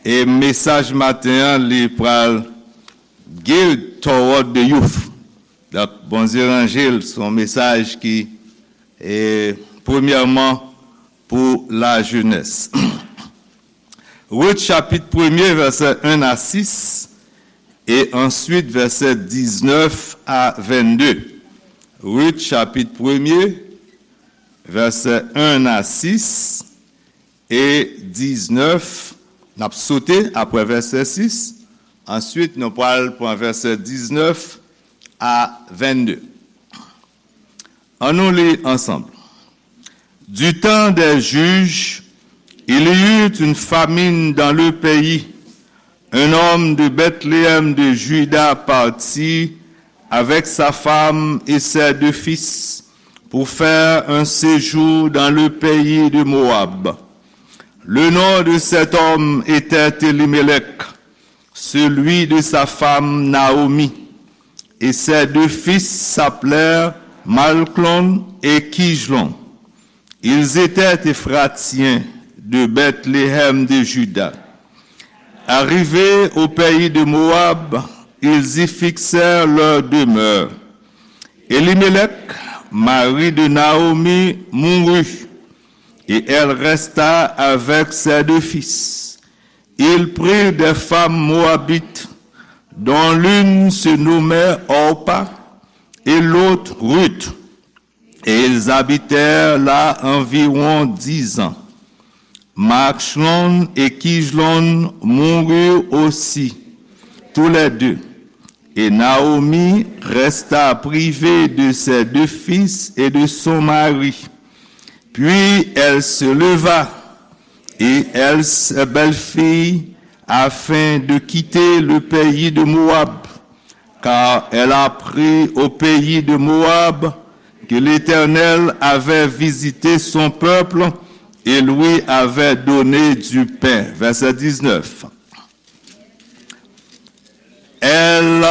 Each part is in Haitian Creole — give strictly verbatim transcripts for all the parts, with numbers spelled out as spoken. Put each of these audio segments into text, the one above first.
E mesaj maten an, li pral Geared Toward the Youth. Donk, Bondye ranje l, se yon mesaj ki, e, premyèman pou lajenès. Rut chapit premye, vèsè en a sis, e answit vèsè diznèf a vennde. Rut chapit premye, vèsè en a sis, e diznèf, n ap sote apre vèsè sis, answit nou pral pran vèsè diznèf a vennde. An nou li ansanm. Du temps des juges, il y eut une famine dans le pays. Un homme de Bethléem de Juda partit avec sa femme et ses deux fils pour faire un séjour dans le pays de Moab. Le nom de cet homme était Élimélec, celui de sa femme Naomi, et ses deux fils s'appelèrent Malclon et Kijlon. Ils étaient Éphratiens de Bethléem de Juda. Arrivés au pays de Moab, ils y fixèrent leur demeure. Élimélec, mari de Naomi, mourut, et elle resta avec ses deux fils. Il prit des femmes moabites, dont l'une se nommait Orpa et l'autre Ruth, et ils habitèrent là environ dix ans. Machlon et Kijlon moururent aussi, tous les deux, et Naomi resta privée de ses deux fils et de son mari. Puis elle se leva et elle, ses belles-filles, afin de quitter le pays de Moab, car elle apprit au pays de Moab que l'Éternel avait visité son peuple et lui avait donné du pain. Verset dix-neuf. Elles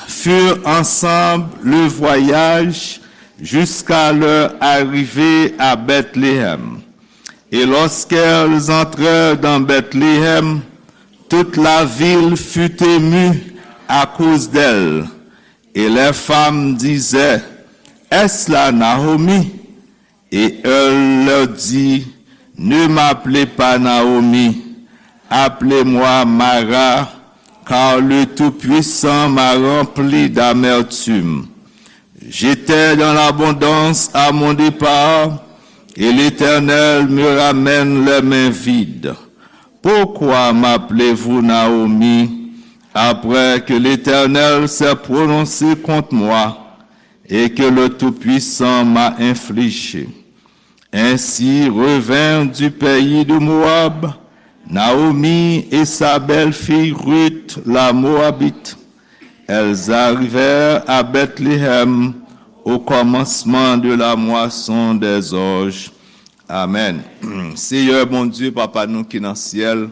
furent ensemble le voyage jusqu'à leur arrivée à Bethléem. Et lorsqu'elles entrèrent dans Bethléem, toute la ville fut émue à cause d'elles. Et les femmes disaient, Est-ce là Naomi? Et elle leur dit, Ne m'appelez pas Naomi, appelez-moi Mara, car le Tout-Puissant m'a rempli d'amertume. J'étais dans l'abondance à mon départ, et l'Éternel me ramène les mains vides. Pourquoi m'appelez-vous Naomi, après que l'Éternel s'est prononcé contre moi et que le Tout-Puissant m'a infligé? Ainsi revinrent du pays de Moab Naomi et sa belle-fille Ruth la Moabite. Elles arrivèrent à Bethléem au commencement de la moisson des orges. Amèn. Seyè Bondye, Papa nou ki nan syèl,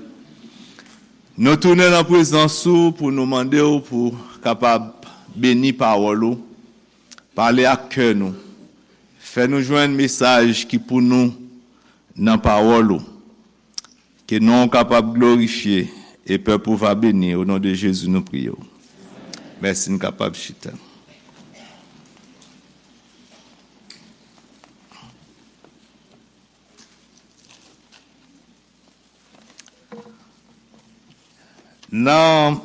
nou tounen nan prezans ou pou nou mande w pou kapab beni pawòl ou, pale ak kè nou, fè nou jwenn mesaj ki pou nou nan pawòl ou. Ke non w kapab glorifye e pèp ou va beni. O non de Jezi, nou priye w. Mèsi, n kapab chita. Nan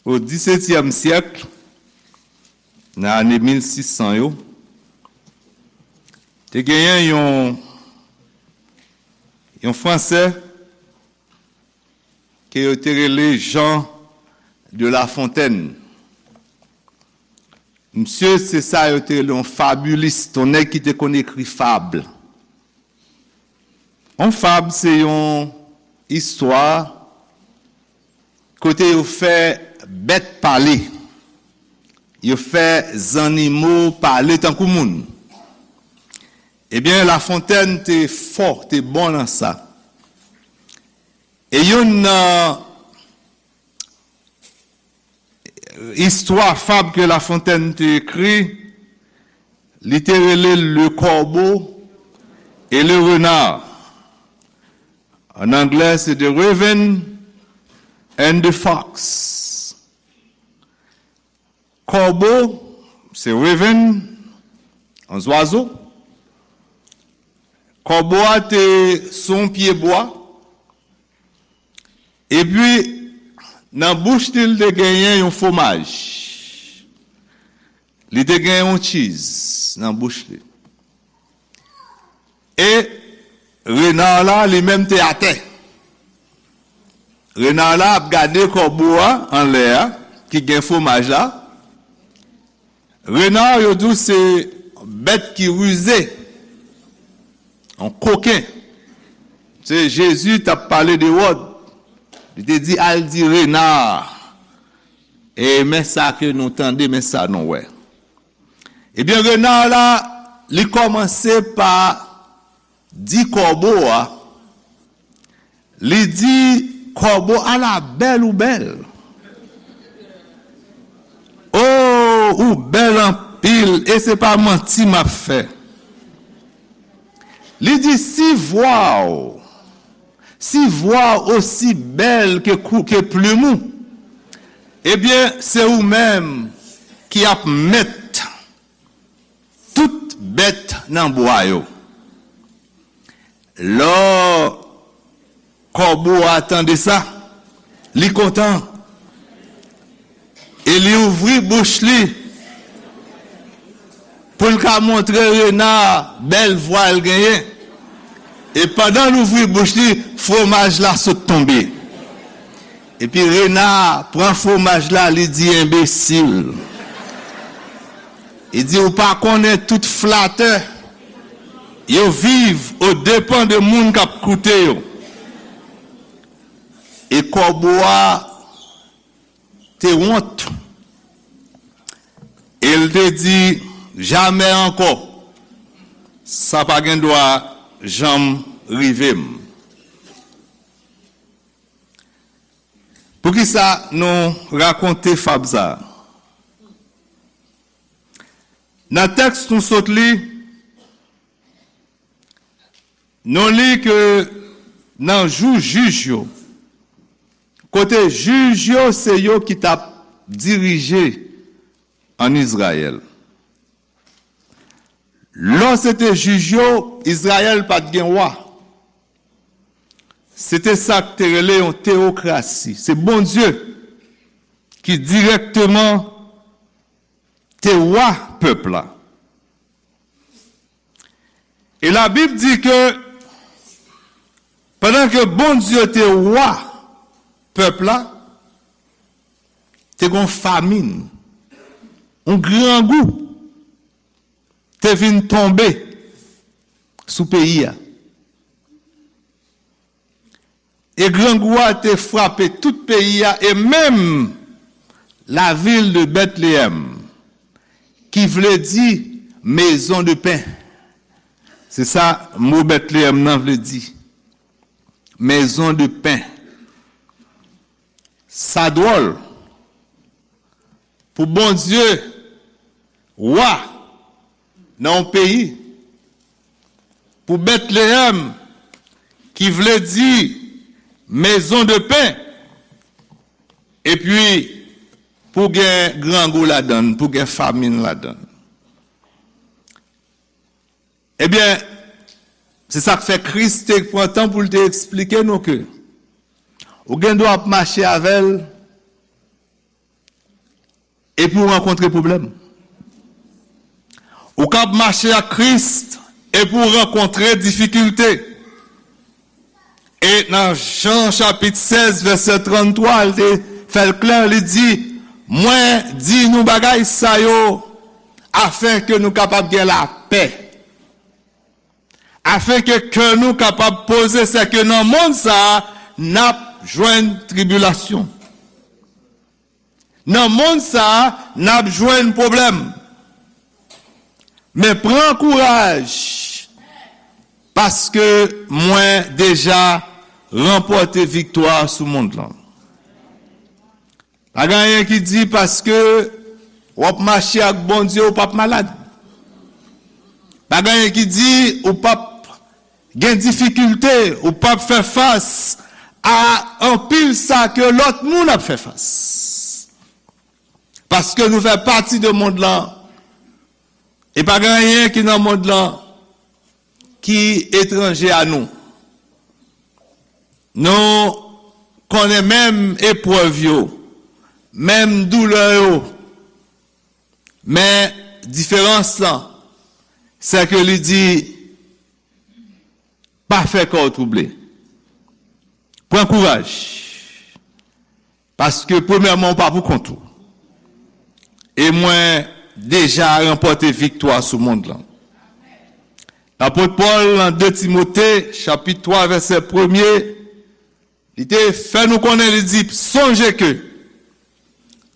O disetyèm syèk, nan ane mil sis san yo, te genyen yon, yon Fransè ke yo te rele Jean de La Fontaine. Misye, se sa yo te rele yon fabilis, yon nèg ki te konn ekri fab. Yon fab, se yon istwa kote yo fè bèt pale. Yo fè zannimo pale tankou moun. Ebyen, La Fontaine te fò, te bon nan sa. E youn nan istwa fab ke La Fontaine te ekri, li te rele Le Corbeau et le Renard. An anglè, se the raven and the fox. Kòbo, se raven, yon zwazo. Kòbo a te sou yon pye bwa. Epi, nan bouch li, li te genyen yon fwomaj. Li te genyen yon cheese nan bouch li. E rena la, li menm, te atè. Rena la ap gade kòbo a anlè a, ki gen fwomaj la. Rena, yo di w se bèt ki rize, yon koken. Se Jezi t ap pale de Ewòd. Li te di, "Al di rena, e men sa ke nou tande, men sa nou wè." Ebyen, rena la, li kòmanse pa di kòbo a, li di, "Kòbo, ala bèl ou bèl. O, ou bèl anpil, e se pa manti m ap fè." Li di, "Si vwa w, si vwa w osi bèl ke kou, ke plim ou, ebyen, se ou menm ki ap mèt tout bèt nan bwa yo." Lò kòbo a tande sa, li kontan. E li ouvri bouch li pou l ka montre rena a bèl vwa l genyen. E pandan l ouvri bouch li, fwomaj la sot tonbe. Epi rena a pran fwomaj la, li di, "Enbesil." Li di, "Ou pa konnen tout flatè, yo viv o depan de moun k ap koute yo." E kòbo a te wont. E l te di, "Jamè ankò. Sa pa gen dwa janm rive m." Poukisa nou rakonte fab sa a? Nan tèks nou sot li, nou li ke nan jou jij yo, kote jij yo se yo ki t ap dirije ann Izrayèl. Lò se te jij yo, Izrayèl pa t gen wa. Se te sa k te rele yon teyokrasi. Se Bondye ki dirèkteman te wa pèp la. E Labib di ke pandan ke Bondye te wa pèp la, te gon famin, yon grangou te vin tonbe sou peyi a. E grangou a te frape tout peyi a, e menm lavil de Bètleyèm, ki vle di maison de pain. Se sa mo Bètleyèm nan vle di. Maison de pain. Sa dwòl pou Bondye, wa nan yon peyi, pou Bètleyèm, ki vle di maison de pain, epi pou gen grangou ladan l, pou gen famin ladan l. Ebyen, se sa k fè Kris te pran tan pou l te eksplike nou ke ou gen dwa ap mache avè l epi w rankontre pwoblèm. Ou ka ap mache ak Kris epi w rankontre difikilte. E nan Jan chapit sèz, vèsè tranntwa, l te fè l klè, li di, "Mwen di nou bagay sa yo afen ke nou kapab gen lapè, afen ke kè nou kapab poze, sèke nan monn sa a, n ap jwenn tribilasyon." Nan monn sa a, n ap jwenn pwoblèm. Men pran kouraj, paske mwen deja ranpòte viktwa sou monn lan. Pa gen anyen ki di paske w ap mache ak Bondye, ou p ap malad. Pa gen anyen ki di ou p ap gen difikilte, ou p ap fè fas a anpil sa ke lòt moun ap fè fas. Paske nou fè pati de mond lan, e pa gen anyen ki nan mond lan ki etranje a nou. Nou konnen menm eprèv yo, menm doulè yo, men diferans lan, se ke li di, pa fè kè w twouble. Pran kouraj. Paske premyèman, ou pa pou kont ou. E mwen deja ranpòte viktwa sou mond lan. Lapot Pòl, nan de Timote, chapit twa, vèsè premye, li te fè nou konnen, li di, sonje ke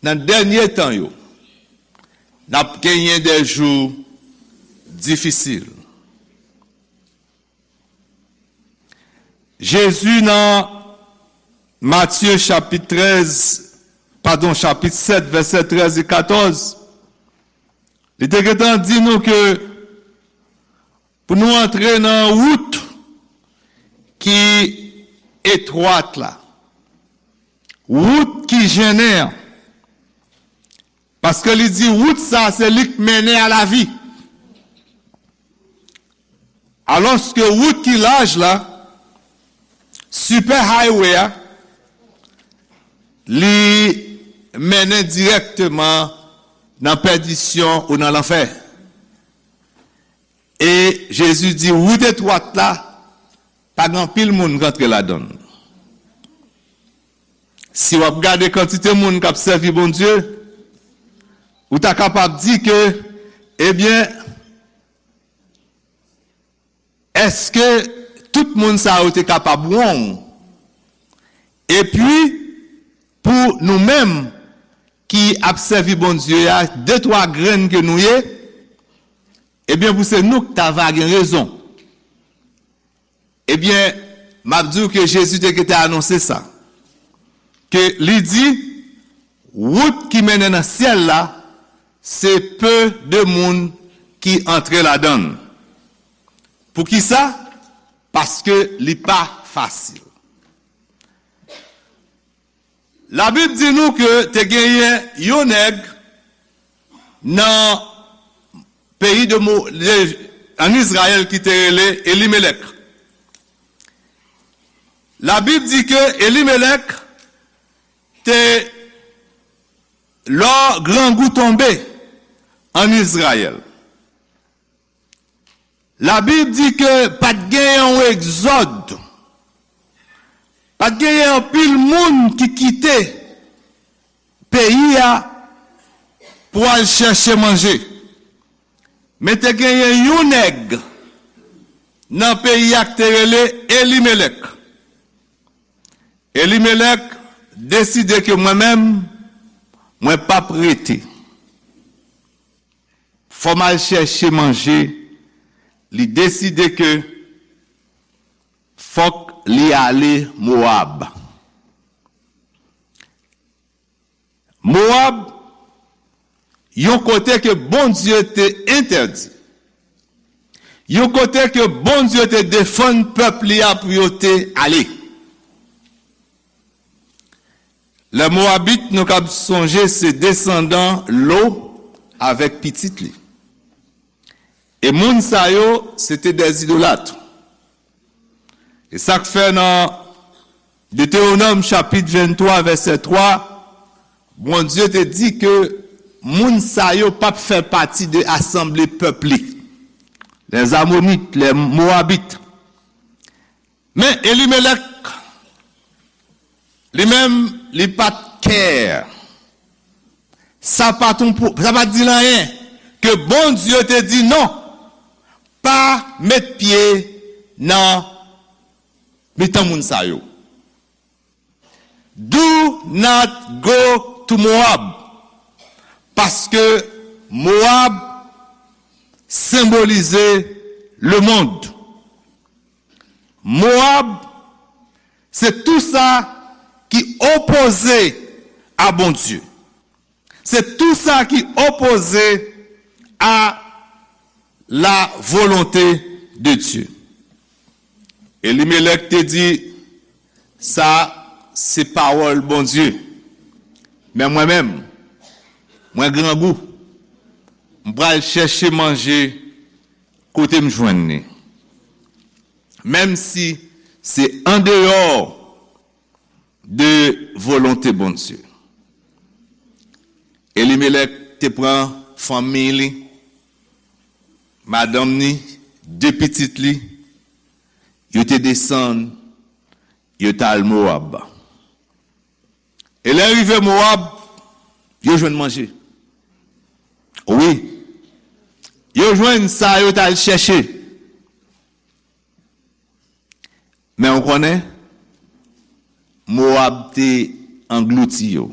nan dènye tan yo, n ap genyen de jou difisil. Jezi nan Matye chapit trèz, padon, chapit sèt, vèsè trèz e katòz, li te gentan di nou ke pou nou antre nan wout ki etwat la, wout ki jennen an, paske li di wout sa se li k mennen a lavi. Alòske wout ki laj la, super highway a, li mennen dirèkteman nan pèdisyon ou nan lanfè. E Jezi di wout etwat la, pa gen anpil moun k antre ladan l. Si w ap gade kantite moun k ap sèvi Bondye, ou ta kapab di ke, ebyen, èske tout moun sa yo te kapab wrong? Epi, pou nou menm ki ap sèvi Bondye a, de twa grenn ke nou ye, ebyen, pou se nou k ta va gen rezon. Ebyen, m ap di w ke Jezi te gentan anonse sa. Ke li di, wout ki mennen nan syèl la, se pe de moun ki antre ladan l. Poukisa? Paske li pa fasil. Labib di nou ke te genyen yon nèg nan peyi de, Mo- de ann Izrayèl ki te rele Elimelèk. Labib di ke Elimelèk te, lò grangou tonbe ann Izrayèl. Labib di ke pa t genyen yon egzòd, pa t genyen anpil moun ki kite peyi a pou al chèche manje. Men te genyen yon nèg nan peyi a ki te rele Elimelèk. Elimelèk deside ke mwen menm, mwen p ap rete. Fò m al chèche manje. Li deside ke fòk li ale Mowab. Mowab, yon kote ke Bondye te entèdi. Yon kote ke Bondye te defann pèp li a pou yo te ale. Lè Mowabit, nou kab sonje, se desandan Lo avèk pitit li. E moun sa yo, se te dè idolat. E sa k fè nan Detewonòm chapit venntwa, vèsè twa, Bondye te di ke moun sa yo p ap fè pati de asanble pèp li. Les Amonites, les Moabites. Men Elimelèk, li menm, li pa t care. Sa pa t yon pou- sa pa t di l anyen ke Bondye te di non, pa met pye nan mitan moun sa yo. Do not go to Moab. Paske Moab senbolize lemonn. Moab, se tou sa ki opoze a Bondye. Se tou sa ki opoze a la volonte de Dye. Elimelèk te di, "Sa se pawòl Bondye. Men mwen menm, mwen grangou. M pral chèche manje kote m jwenn li. Menm si se andeyò de volonte Bondye." Elimelèk te pran fanmi li, madanm ni, de pitit li, yo te desann, yo t al Mowab. E lè rive Mowab, yo jwenn manje. Wi, yo jwenn sa yo t al chèche. Men w konnen, Mowab te anglouti yo.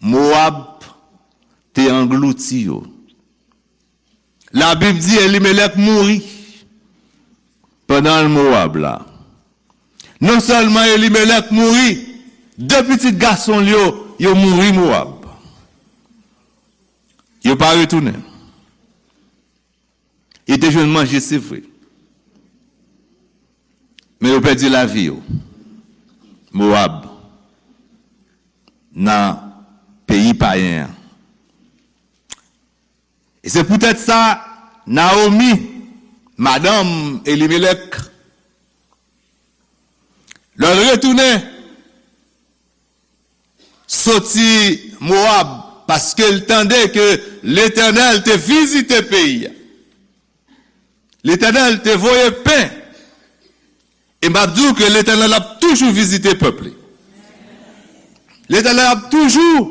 Mowab te anglouti yo. Labib di Elimelèk mouri pandan l Mowab la. Non sèlman Elimelèk mouri, de pitit gason l yo, yo mouri Mowab. Yo pa retounen. Yo te jwenn manje, se vre. Men yo pèdi lavi yo. Mowab, nan peyi payen an. E se poutèt sa, Nawomi, madanm Elimelèk, lè l retounen soti Mowab, paske l tande ke Letènèl te vizite peyi a. Letènèl te voye pen. E m ap di w ke Letènèl ap toujou vizite pèp li. Letènèl ap toujou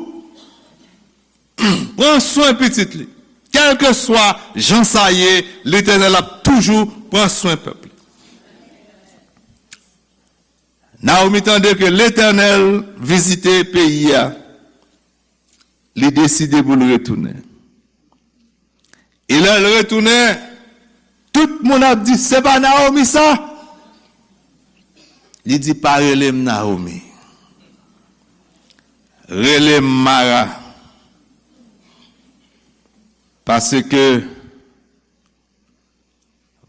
pran swen pitit li. Kèlkeswa jan sa ye, Letènèl ap toujou pran swen pèp li. Nawomi tande ke Letènèl vizite peyi a, li deside pou l retounen. E lè l retounen, tout moun ap di, "Se pa Nawomi sa?" Li di, "Pa rele m Nawomi. Rele m Mara. Paske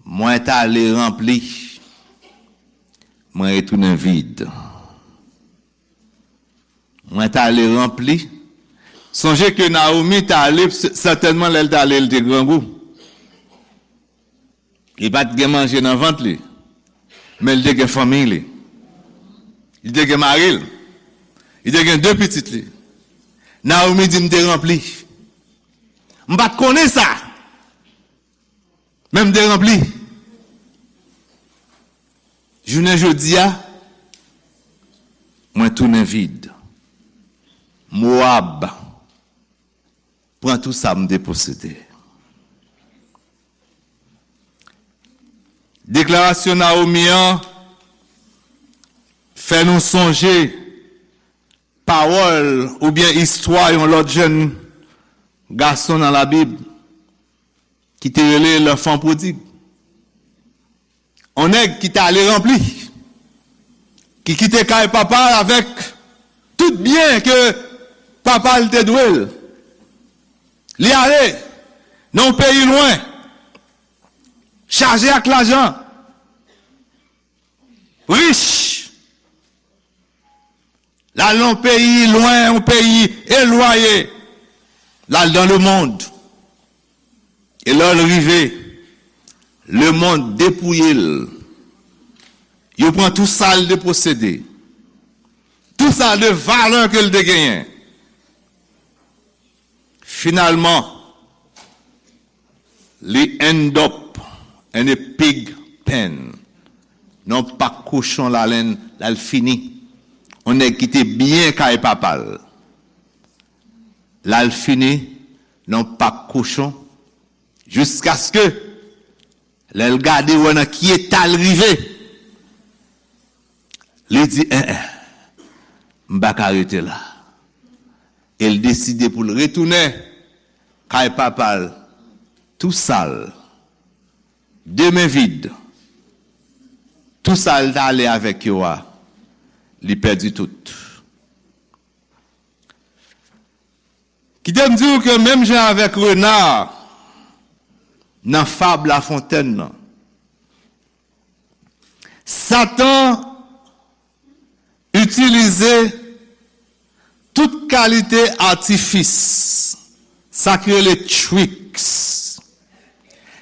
mwen t ale ranpli, mwen retounen vid." Mwen t ale ranpli. Sonje ke Nawomi t ale, s-, sètènman lè l t ale, l te grangou. Li pa t gen manje nan vant li, men li te gen fanmi li. Li te gen mari l. Li te gen de pitit li. Nawomi di, "M te ranpli. M pa t konnen sa." Men m te ranpli. Jounen jodi a, mwen tounen vid. Mowab pran tou sa m te posede. Deklarasyon Nawomi an fè nou sonje pawòl oubyen istwa yon lòt jèn gason nan Labib ki te rele l'enfant prodigue. On nèg ki t ale ranpli, ki kite kay papa l avèk tout byen ke papa l te dwe l. Li ale nan yon peyi lwen, chaje ak lajan, rich. L al nan yon peyi lwen, yon peyi elwaye. L al dan lemonn. E lè l rive, lemonn depouye l. Yo pran tou sa l te posede. Tou sa de valè ke l te genyen. Finalman, li end up in a pig pen. Nan pak kochon l al, l al fini. On nèg ki te byen kay papa l. L al fini nan pak kochon, jiskaske lè l gade wè nan ki eta l rive, li di, "En, en, m pa ka rete la." E l deside pou l retounen kay papa l, tou sal, de men vid. Tou sa l t ale avèk yo a, li pèdi tout. Kite m di w ke menm jan avèk rena nan fab Lafontèn nan, Satan itilize tout kalite atifis, sa ki rele tricks.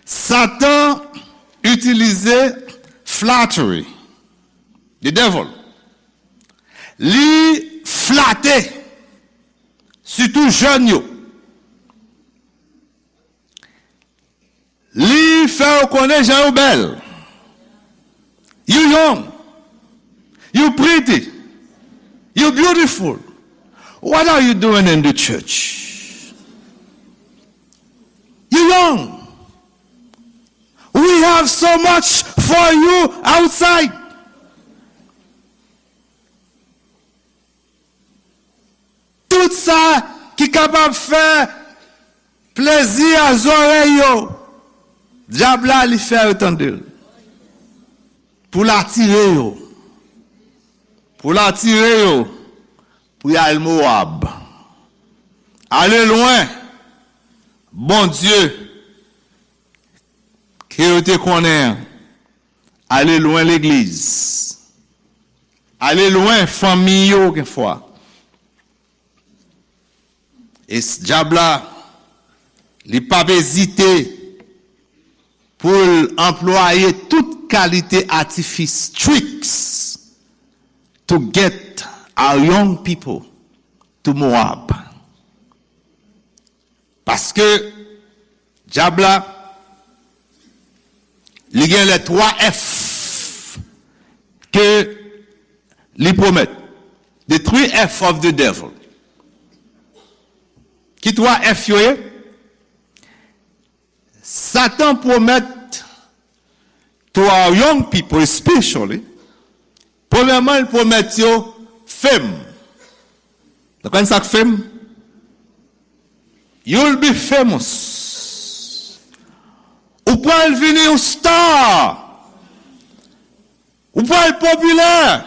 Satan itilize flattery, the devil. Li flate, sitou jèn yo. Li fè yo konnen jan yo bèl. You young. You pretty. You beautiful. What are you doing in the church? You young. We have so much for you outside. Tout sa ki kapab fè plezi a zòrèy yo, dyab la li fè yo tande l. Pou l atire yo. Pou l atire yo. Pou y al Mowab. Ale lwen Bondye ke yo te konnen an. Ale lwen legliz. Ale lwen fanmi yo genfwa. E s- dyab la, li p ap ezite pou l anplwaye tout kalite atifis, tricks, to get our young people to Moab. Paske dyab la, li gen lè twa F ke li pwomèt. The three F of the devil. Ki twa F yo ye? Satan pwomèt to our young people especially, premyèman, li pwomèt yo fame. Nou konn sa k fame? You'll be famous. Ou pral vini yon star. Ou pral popilè.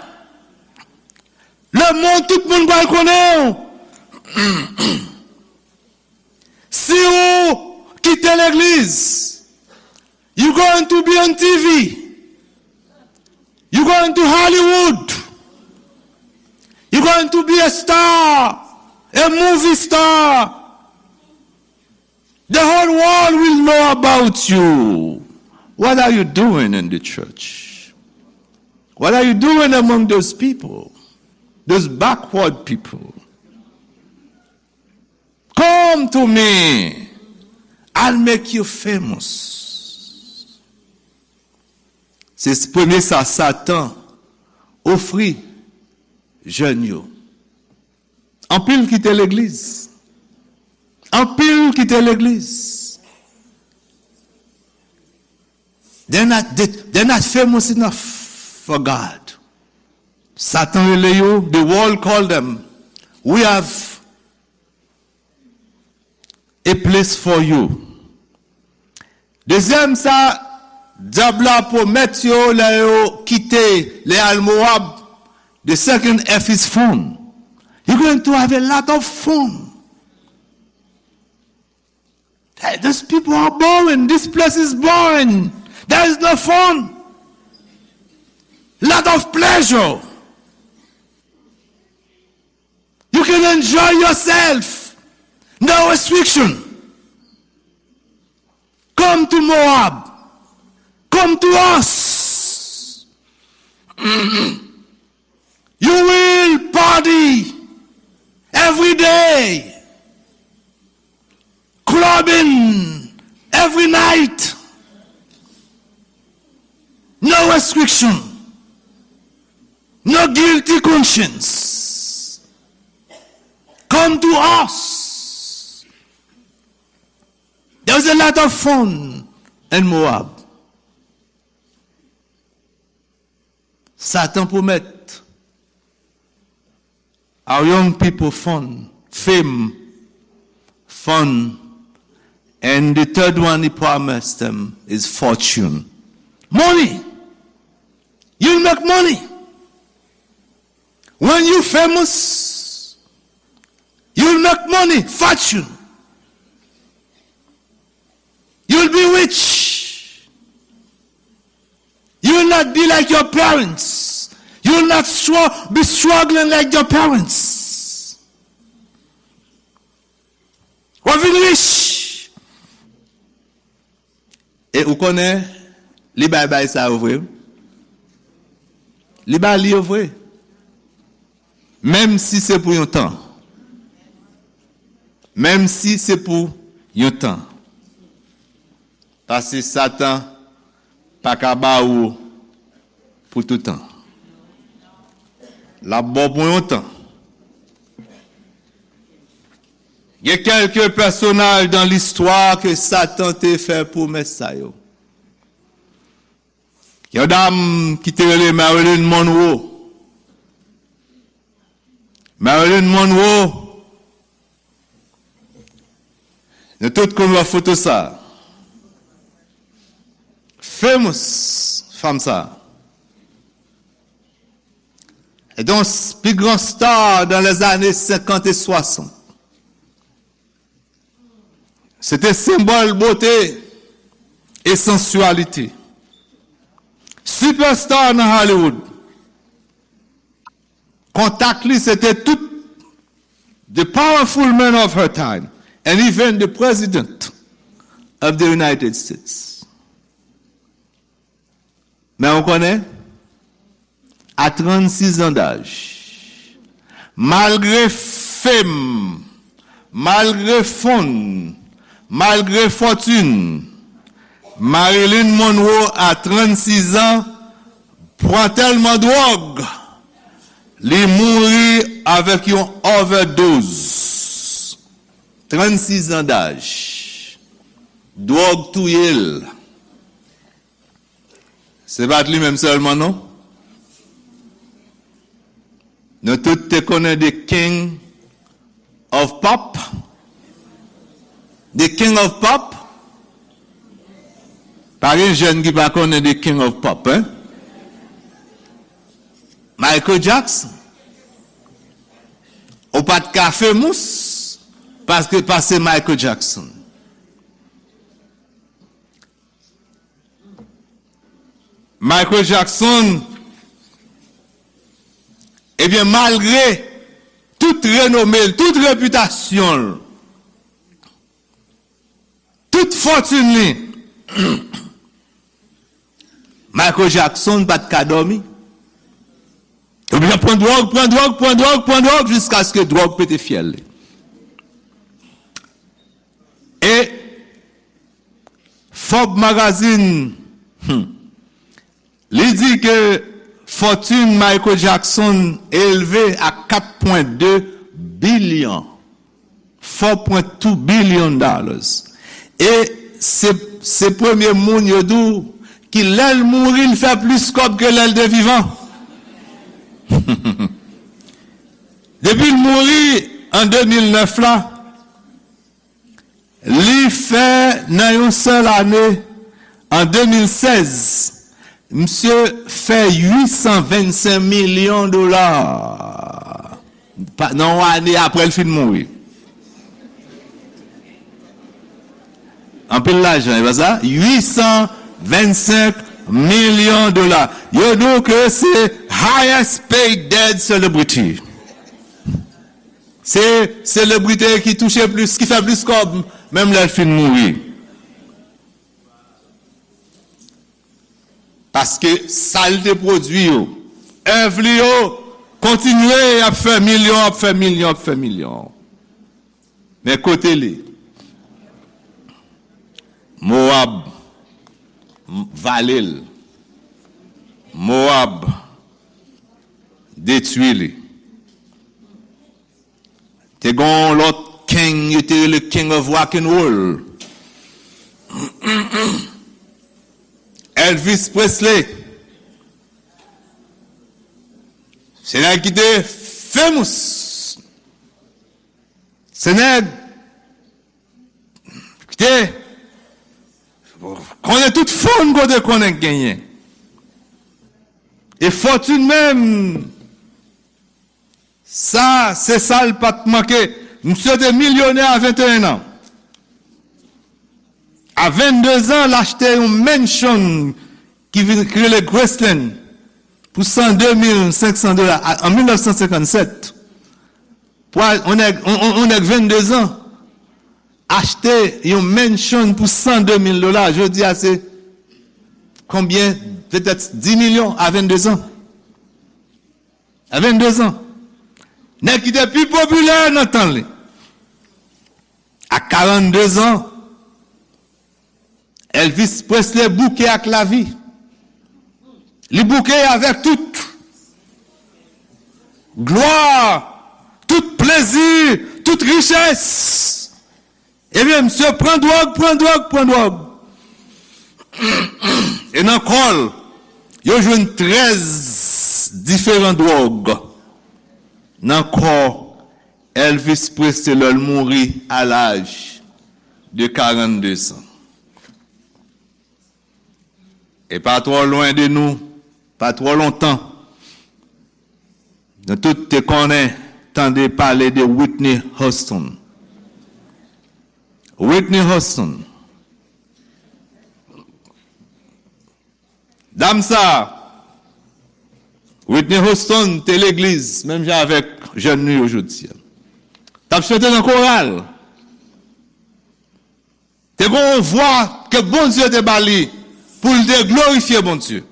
Lemonn, tout moun pral konnen w. Si ou kite legliz, you going to be on T V. You going to Hollywood. You going to be a star, a movie star. The whole world will know about you. What are you doing in the church? What are you doing among those people? Those backward people? Come to me. I'll make you famous. Se premye sa Satan ofri jèn yo. Anpil kite legliz. Anpil kite legliz. They're not, they, they're not famous enough for God. Satan rele yo, the world call them. We have a place for you. Dezyèm sa, dyab la pwomèt yo lè yo kite, lè al Moab, the second F is fun. You're going to have a lot of fun. Hey, those people are boring. This place is boring. There is no fun. Lot of pleasure. You can enjoy yourself. No restriction. Come to Moab. Come to us. You will party every day. Clubbing every night. No restriction. No guilty conscience. Come to us. There's a lot of fun in Moab. Satan pwomèt our young people fun, fame, fun, and the third one he promised them is fortune. Money. You'll make money. When you famous, you'll make money, fortune. You'll be rich. You will not be like your parents. You will not str- be struggling like your parents. W ap vin rich. E ou konnen, li bay bay sa yo vre. Li ba li yo vre. Menm si se pou yon tan. Menm si se pou yon tan. Paske Satan pa ka ba ou pou toutan. L ap ba w pou yon tan. Gen kèlke pèsonaj dan listwa ke Satan te fè pwomès sa yo. Yon dam ki te rele Marilyn Monroe. Marilyn Monroe, nou tout konn wè foto sa. Famous fanm sa. E donk, pi gran star dan lèzane senkant e swasant. Se te senbòl bote e sansyalite. Superstar nan Hollywood. Kontak li se te tout the powerful men of her time and even the president of the United States. Men ou konnen, a trannsis an daj, malgre fame, malgre fon, malgre fòtin, Marilyn Monroe a trannsis an pran tèlman dwòg, li mouri avèk yon overdose. Trannsis an daj. Dwòg touye l. Se pa t li menm sèlman, non. Nou tout te konnen the King of Pop. The King of Pop. Pa gen jèn ki pa konnen the King of Pop, hein? Michael Jackson. Ou pa t ka famous paske pase Michael Jackson. Michael Jackson, ebyen, malgre tout renome l, tout repitasyon l, tout fòtin li, Michael Jackson pa t ka dòmi. Ebyen, pran dwòg, pran dwòg, pran dwòg, pran dwòg, jiskaske dwòg pete fyèl li. E Forbes Magazine, hmm, li di ke fòtin Michael Jackson elve a kat pwen de bilyon, four point two billion dollars. E se, se premye moun yo di w ki lè l mouri, l fè plis kòb ke lè l te vivan. Depi l mouri an de mil nèf la, li fè nan yon sèl ane, an de mil sèz, misye fè uit san vennsenk milyon dola. Pa, nan yon ane apre l fin mouri. Anpil lajan, e pa sa? Uit san vennsenk milyon dola. Yo di w ke se highest paid dead celebrity. Se selebrite ki touche plis, ki fè plis kòb, menm lè l fin mouri. Paske sa l te pwodui yo, èv li yo, kontinye ap fè milyon, ap fè milyon, ap fè milyon. Men kote li? Mowab vale l. Mowab detwi li. Te gen yon lòt king, yo te rele King of Rock and Roll. Elvis Presley. Se nèg ki te famous. Se nèg ki te konnen tout fòn kote konnen genyen. E fòtin menm, sa, se sa l pa t manke. Misye te milyonè a venteyen an. A vennde zan, l achte yon mansion ki vin, ki rele Graceland, pou san de mil senk san dola a- an mil nèf san senkann sèt, pou al- yon nèg, yon, yon, yon nèg vennde zan, achte yon mansion pou san de mil dola. Jodi a, se konbyen? Petèt dis milyon a vennde zan. A vennde zan. Nèg ki te pi popilè nan tan li. A karannde zan, Elvis Presley bouke ak lavi. Li bouke avèk tout glwa, tout plezi, tout richès. Ebyen, misye pran dwòg, pran dwòg, pran dwòg. E nan kò l, yo jwenn trèz diferan dwòg nan kò Elvis Presley lè l mouri a laj de karannde zan. E pa twò lwen de nou, pa twò lontan, nou tout te konnen, tande pale de Whitney Houston. Whitney Houston. Dam sa, Whitney Houston te legliz, menm jan avèk jèn nou yo jodi a. T ap chante nan koral. Te gen yon vwa ke Bondye te ba li pou l te glorifye Bondye.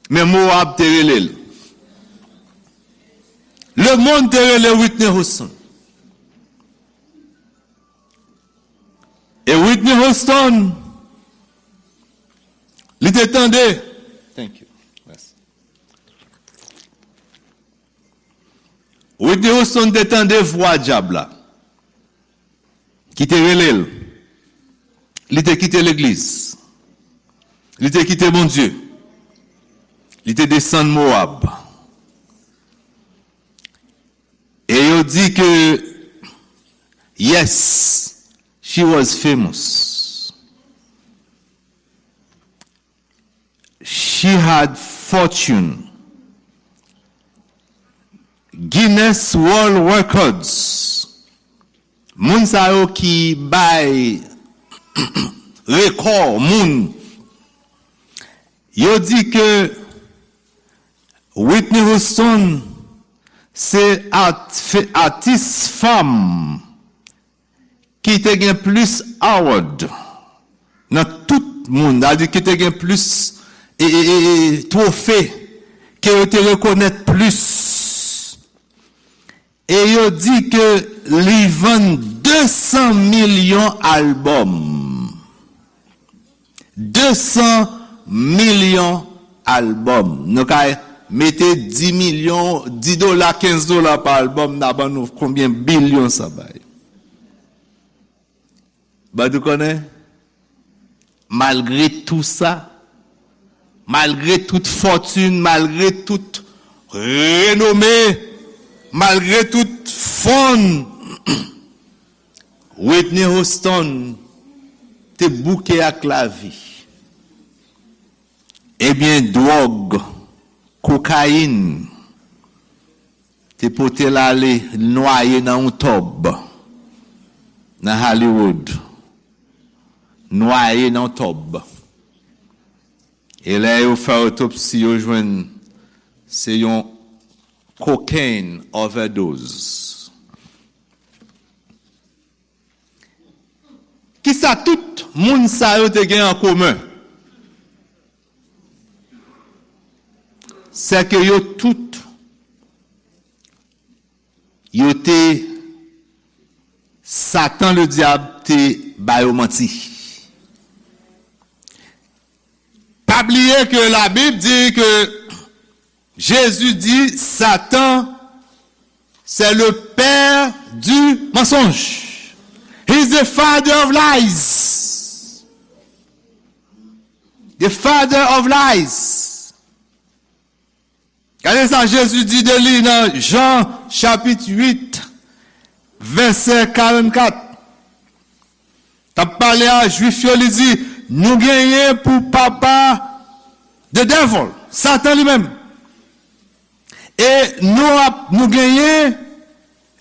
Men Moab te rele l. Lemonn te rele Whitney Houston. E Whitney Houston, li te tande. Thank you. Mèsi. Whitney Houston te tande vwa dyab la ki te rele l. Li te kite legliz. Li te kite Bondye. Li te desann Moab. E yo di ke, yes, she was famous. She had fortune. Guinness World Records. Moun sa yo ki bay rekò moun, yo di ke Whitney Houston se at- fe- atis fanm ki te gen plis award nan tout moun, sa vle di ki te gen plis e, e, e, e, twofe, ke yo te rekonèt plis. E yo di ke li vann de san milyon albòm. De san milyon albòm. Nou ka mete dis milyon, dis dola, kenz dola pa albòm, n a ban nou konbyen bilyon sa bay. Badou konnen, malgre tou sa, malgre tout fòtin, malgre tout renome, malgre tout fon, Whitney Houston te bouke ak lavi. Ebyen, dwòg, kokayin, te pote l ale nwaye nan yon tòb nan Hollywood. Nwaye nan yon tòb. E lè yo fè otopsi, yo jwenn se yon cocaine overdose. Kisa tout moun sa yo te gen an komen? Sè ke yo tout, yo te, Satan ledyab te ba yo manti. Pa bliye ke Labib di ke Jezi di Satan c'est le père du mensonge. He's the father of lies. The father of lies. Gade sa Jezi di de li nan Jan chapit uit, vèsè karannkat. T ap pale a Jwif yo, li di, nou genyen pou papa the devil, Satan li menm. E nou ap, nou genyen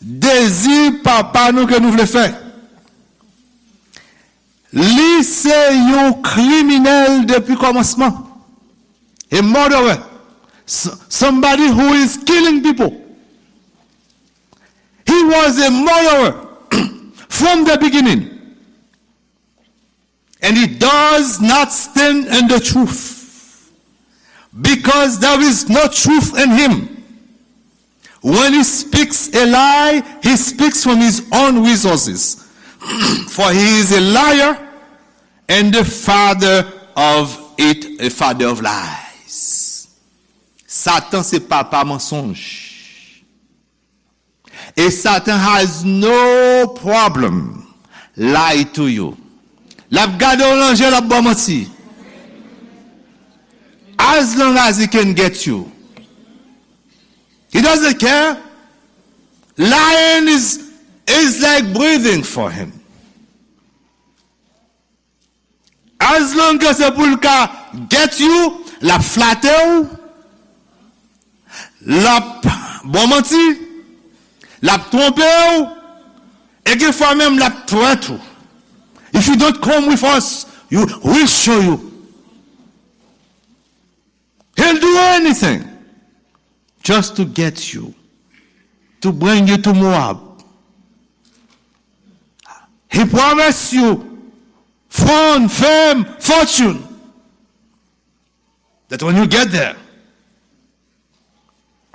dezi papa nou ke nou vle fè. Li se yon kriminèl depi kòmansman. A murderer. S- somebody who is killing people. He was a murderer from the beginning. And he does not stand in the truth, because there is no truth in him. When he speaks a lie, he speaks from his own resources. For he is a liar and the father of it, a father of lies. Satan se papa mansonj. E Satan has no problem lie to you. L ap gade w nan je, l ap ba w manti. As long as he can get you, he doesn't care. Lying is, is like breathing for him. As long as se pou l ka get you, l ap flate w, l ap ba w manti, l ap twonpe w, e gen fwa menm l ap threat ou. If you don't come with us, you, we'll show you. He'll do anything just to get you, to bring you to Moab. He promised you throne, fame, fortune. That when you get there,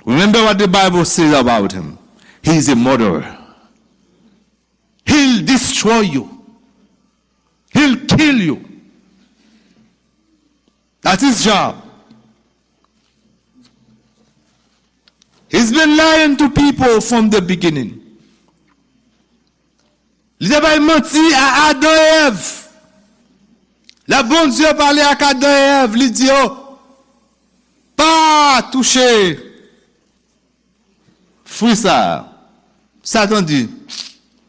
remember what the Bible says about him. He is a murderer. He'll destroy you. He'll kill you. That's his job. He's been lying to people from the beginning. Li te bay manti a Adan e Èv. Lè Bondye pale ak Adan e Èv, li di yo, pa touche fwi sa a. Satan di,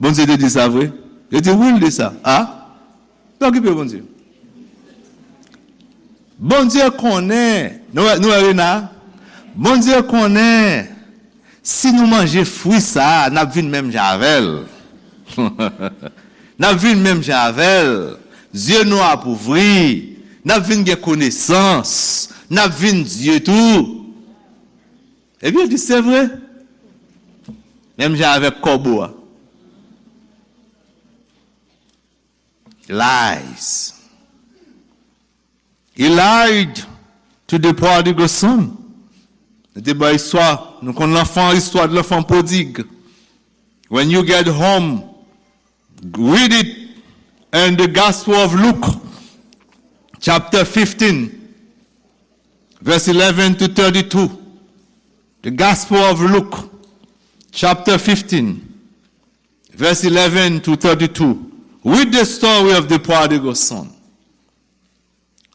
Bondye te di sa vre? Yo di, wi, l di sa. A? Pa okipe Bondye. Bondye konnen, nou wè, nou wè Rena? Bondye konnen, si nou manje fwi sa a, n ap vin menm jan avè l. N ap vin menm jan avè l. Zye nou ap ouvri. N ap vin gen konesans. N ap vin Dye tou. Epi yo di, se vre. Menm jan avèk kòbo a. Lies. He lied to the prodigal son. Nou te bay istwa, nou konn lanfan, istwa de l'enfant prodigue. When you get home, read it in the Gospel of Luke, chapter fifteen, verse eleven to thirty-two. The Gospel of Luke, chapter fifteen, verse eleven to thirty-two. Read the story of the prodigal son.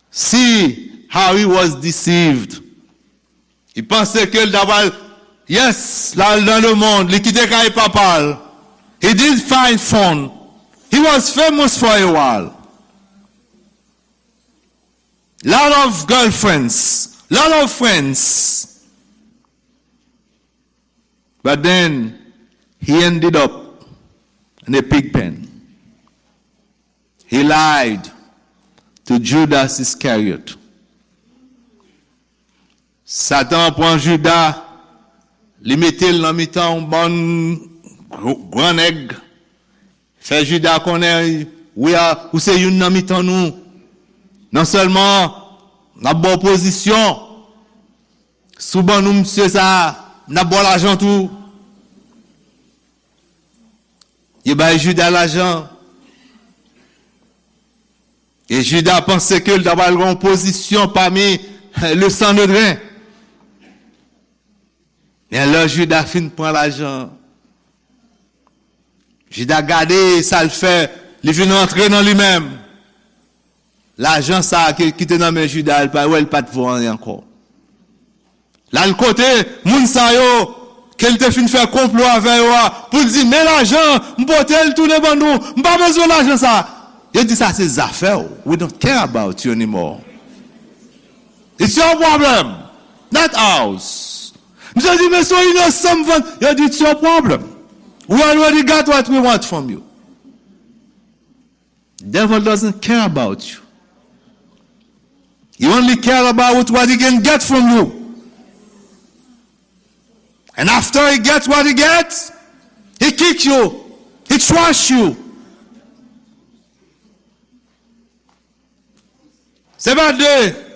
See how he was deceived. Li panse ke l ta pral, yes, l al nan lemonn, li kite kay papa l. He did find fun. He was famous for a while. Lot of girlfriends, lot of friends. But then he ended up in a pig pen. He lied to Judas Iscariot. Satan pran Jida, li mete l nan mitan yon bann gr- gran nèg. Fè Jida konnen, wi, a, ou se youn nan mitan nou. Non sèlman n ap ba w pozisyon, si w ban nou misye sa a, n ap ba w lajan tou. Yo bay Jida lajan. E Jida panse ke l ta pral gen yon pozisyon pami le Sanedren. Men lè Jida fin pran lajan, Jida gade sa l fè, li vin rantre nan li menm. Lajan sa a ki, ki te nan men Jida, l pa wè l pa t vo anyen ankò. L al kote moun sa yo ke l te fin fè konplo avè yo a pou l di, men lajan, m pote l tounen ban nou, m pa bezwen lajan sa. Yo di, sa se zafè w. We don't care about you anymore. It's your problem, not ours. Misye di, men se yon inosan m vann. Yo di, it's your problem. We already got what we want from you. Devil doesn't care about you. He only care about what he can get from you. And after he gets what he gets, he kick you. He trash you. Se pa de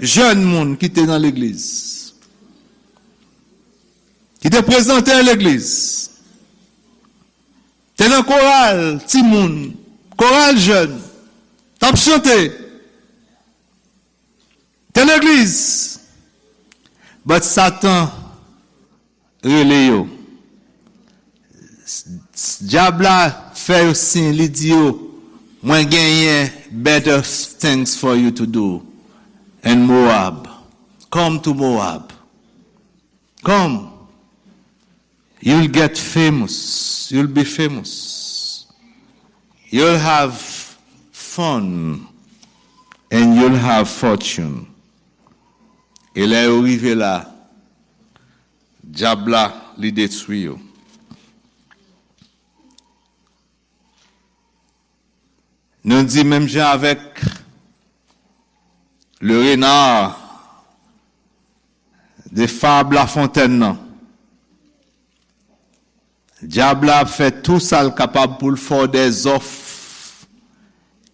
jèn moun ki te nan legliz, ki te prezante legliz, te nan koral timoun, koral jèn, t ap chante, te legliz. But Satan rele yo. Dyab la fè yo siy, li di yo, "Mwen genyen better things for you to do in Moab. Come to Moab. Come. You'll get famous. You'll be famous. You'll have fun. And you'll have fortune." E lè yo rive la, dyab la, li detwi yo. Nou di menm jan avèk le renard de fab La Fontaine nan. Dyab la ap fè tou sa l kapab pou l fè w dè zòf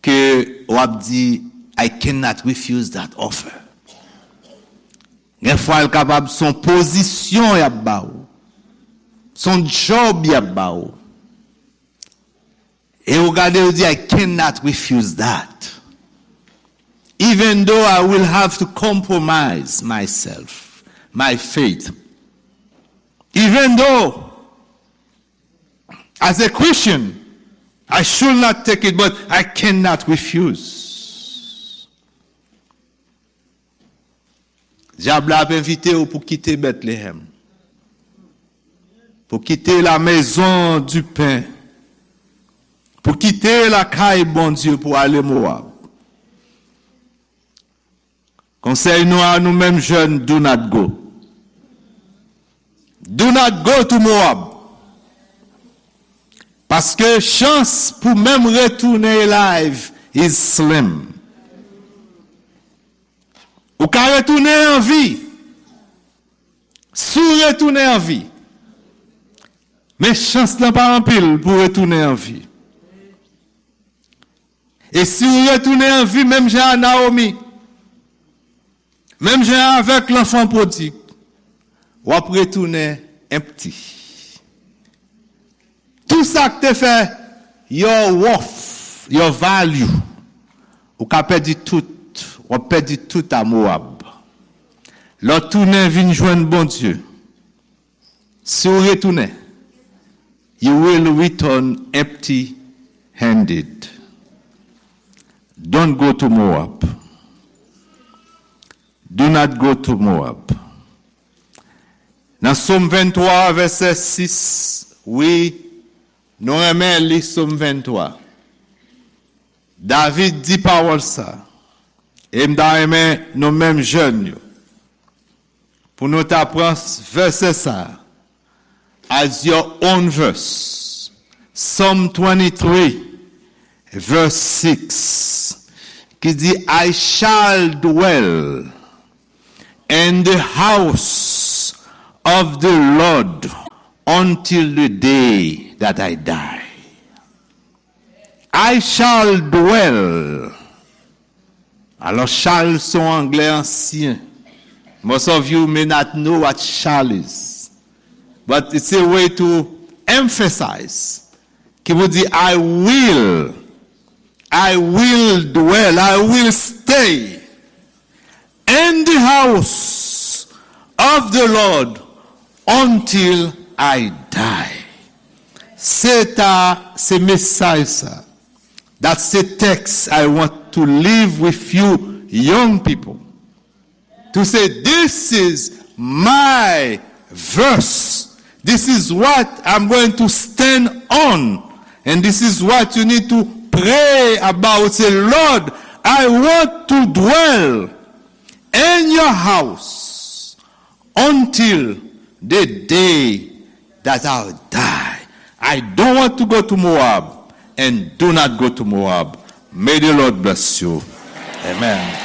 ke w ap di, "I cannot refuse that offer." Gen fwa l kapab se yon pozisyon y ap ba w, se yon djòb y ap ba w. E ou gade, ou di, "I cannot refuse that. Even though I will have to compromise myself, my faith. Even though, as a Christian, I should not take it, but I cannot refuse." Dyab la ap envite w pou kite Bètlehèm, pou kite la maison du pain, pou kite lakay Bondye pou ale Mowab. Konsèy nou a nou menm jèn, do not go. Do not go to Moab. Paske chans pou menm retounen alive is slim. Ou ka retounen an vi. Si w retounen an vi, men chans lan pa anpil pou w retounen an vi. E si w retounen an vi, menm jan a Naomi, menm jan avèk lanfan pwodig, w ap retounen empty. Tou sa k te fè your worth, your value, ou ka pèdi tout, w ap pèdi tout a Mowab. Lè w tounen vin jwenn Bondye, si w retounen, you will return empty handed. Don't go to Moab. Do not go to Moab. Nan Sòm venntwa, vèsè sis, wi, nou renmen li, Sòm venntwa. David di pawòl sa, e m ta renmen nou menm jèn yo, pou nou ta pran vèsè sa as your own verse. Psalm twenty-three, verse six, ki di, "I shall dwell in the house of the Lord until the day that I die." "I shall dwell." Alò, shall se yon anglè ansyen. Most of you may not know what shall is. But it's a way to emphasize. Ki vle di, "I will, I will dwell, I will stay in the house of the Lord until I die." Se ta, se mesaj sa. That's the text I want to leave with you, young people. To say, "This is my verse. This is what I'm going to stand on. And this is what you need to pray about." Say, "Lord, I want to dwell in your house until the day that I'll die. I don't want to go to Moab, and do not go to Moab, May the Lord bless you. Amen.